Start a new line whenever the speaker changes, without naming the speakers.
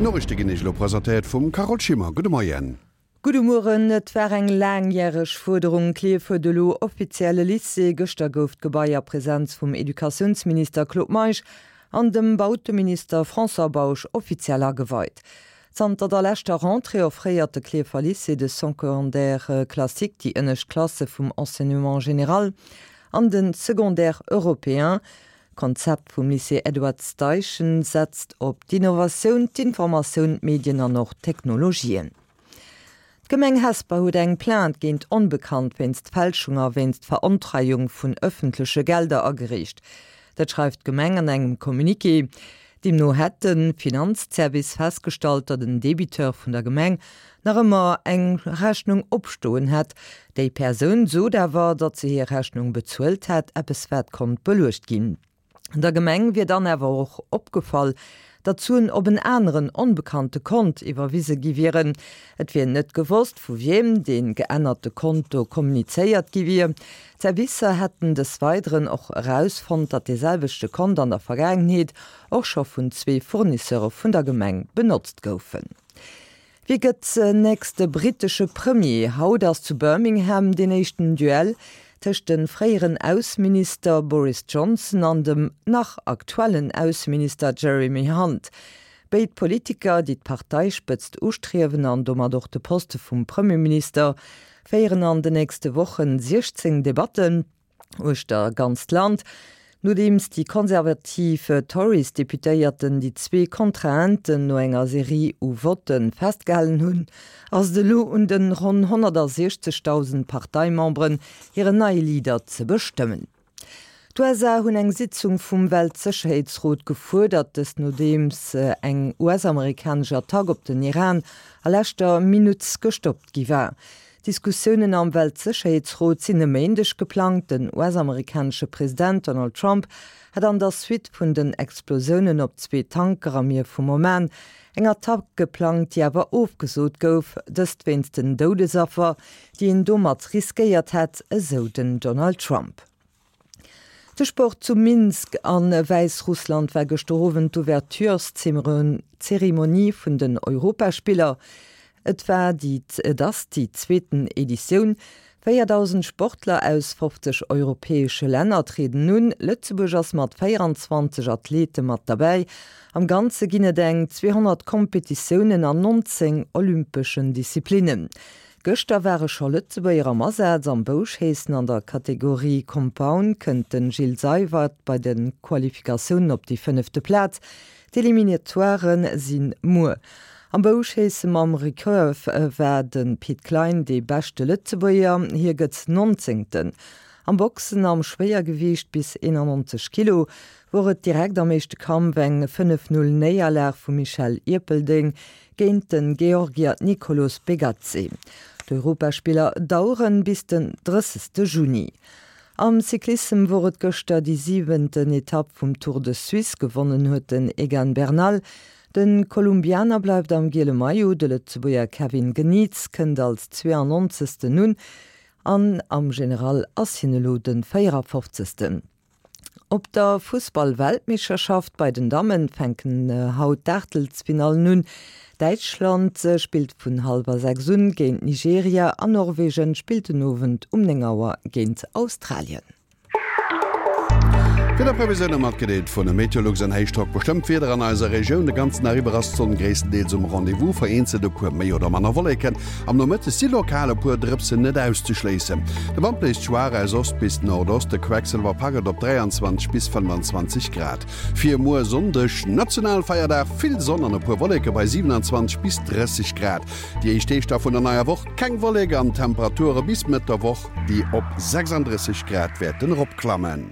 D'Noriichte ginn Iech elo presentéiert vum Carole Schimmer. Gudde Moien.
Gudde Mueren. Et war eng laangjäreg Fuerderung, Klierf huet elo offiziell e Lycée. Gëschter gouf d'Gebai a Presenz vum Educatiounsminister Claude Meisch an dem Bauteminister François Bausch offiziell ageweit. Zanter der leschter Rentrée offréiert de Klierfer Lycée de Secondaire classique, déi ënnescht Klasse vum Enseignement général, an de Secondaire européen. D'Konzept vum Lycée Edward Steichen setzt op d'Innovatioun, d'Informatioun, d'Medien an och d'Technologien. D'Gemeng Hesper huet eng Plainte géint Onbekannt wéinst Fälschung a wéinst Verontreiung vun ëffentleche Gelder agereecht. Dat schreift d'Gemeng an engem Communiqué. Deemno hätt de Finanzservice festgestallt, datt en Debiteur vun der Gemeng nach ëmmer eng Rechnung opstoen hätt. Déi Persoun sot awer, datt se hir Rechnung bezuelt hätt, eppes wat konnt beluecht ginn. Der Gemeng wier dann awer och opgefall, datt d'Suen op en aneren, onbekannte Kont iwwerwise gi wieren. Et wier net gewosst, vu wiem dee geännerte Konto kommunizéiert gi wier. D'Servicer hätten des Weideren och erausfonnt, datt dee selwechte Kont an der Vergaangenheet och scho vun zwee Fournisseure vun der Gemeng benotzt goufen. Wie gëtt nächste brittesche Premier? Haut ass zu Birmingham deen éischten Duell tëscht de fréieren Ausseminister Boris Johnson an dem nach aktuellen Ausseminister Jeremy Hunt. Béid Politiker, déi d'Parteispëtzt ustriewen an domat och de Poste vum Premierminister, féieren an de nächste Wochen 16 Debatten uechter ganzt Land. Nodeems déi konservativ Tories-Deputéierten déi zwee Kontrahenten no enger Serie u Votte festgehalen hunn, ass et elo un de ronn 160.000 Parteimemberen, hiren neie Leader ze bestëmmen. D'USA hunn eng Sitzung vum Weltsécherheetsrot gefuerdert, dëst nodeems eng US-amerikanesch Attack op den Iran a leschter Minutt gestoppt gi war. Diskussiounen am Weltsécherheetsrot sinn e Méindeg geplangt. Den US-amerikanesche President Donald Trump hat an der Suite vun den Explosiounen op zwee Tanker am Mier vum Oman eng Attack geplangt, déi awer ofgesot gouf, dëst wéinst den Doudesaffer, déi een domat riskéiert hätt, esou den Donald Trump. De Sport, Zu Minsk a Wäissrussland war gëschter Owend d'Ouvertureszeremonie vun den Europaspiller. Et war déi et ass déi zweeten Editioun. 4.000 Sportler aus 50 europäesche Länner trieden un. Lëtzebuerg ass mat 24 Athlete mat derbäi. Am Ganze ginn et eng 200 Kompetitiounen an 19 olympeschen Disziplinnen. Gëschter ware scho Lëtzebuerger am Asaz. Am Bouschéissen an der Kategorie Compound kënnt de Gilles Seywert bei de Qualifikatiounen op déi fënnefte Plaz. D'Eliminatoiren si muer. Am Bouschéisse mam Recurve war de Pit Klein dee beschte Lëtzebuerger, hie gëtt Nonzéngten. Am Boxen am Schwéiergewiicht bis 91 Kilo wor et direkt am éischte Kampf eng 5, 0 Néierlag vum Michel Ierpeldeng géint de Georgier Nikolos Begadze. D'Europaspiller daueren bis den 30 Juni. Am Cyclissem wor et gëschter déi siwenten Etapp vum Tour de Suisse. Gewonnen huet den Egan Bernal. De Kolumbianer bleift am giele Maillot, de Lëtzebuerger Kevin Geniets kënnt als 92. un an am General ass hien elo de 54. Op der Fussball-Weltmeeschterschaft bei den Dammen fänken haut d'Aachtelsfinallen un. Däitschland spillt vun hallwer 6 un géint Nigeria an Norwegen spillt den Owend um 9 Auer géint Australien.
D'Wiederprevisioune matgedeelt vun Meteolux. En Héichdrock bestëmmt d'Wieder an eiser Regioun. De ganzen Dag iwwer ass d'Sonn gréisstendeels um Rendez-vous, vereenzelt e puer méi oder manner Wolleken. Am Nomëtteg si lokal e puer Drëpsen net auszeschléissen. De Wand bléist schwaach aus Ost bis Nordost, de Quecksëlwer packt et op 23 bis 25 Grad. Fir muer Sonndeg, Nationalfeierdag, vill Sonn an e puer Wolleke bei 27 bis 30 Grad. Déi éischt Deeg da vun der neier Woch keng Wollek an Temperature bis Mëtt der Woch, déi op 36 Grad wäerten eropklammen.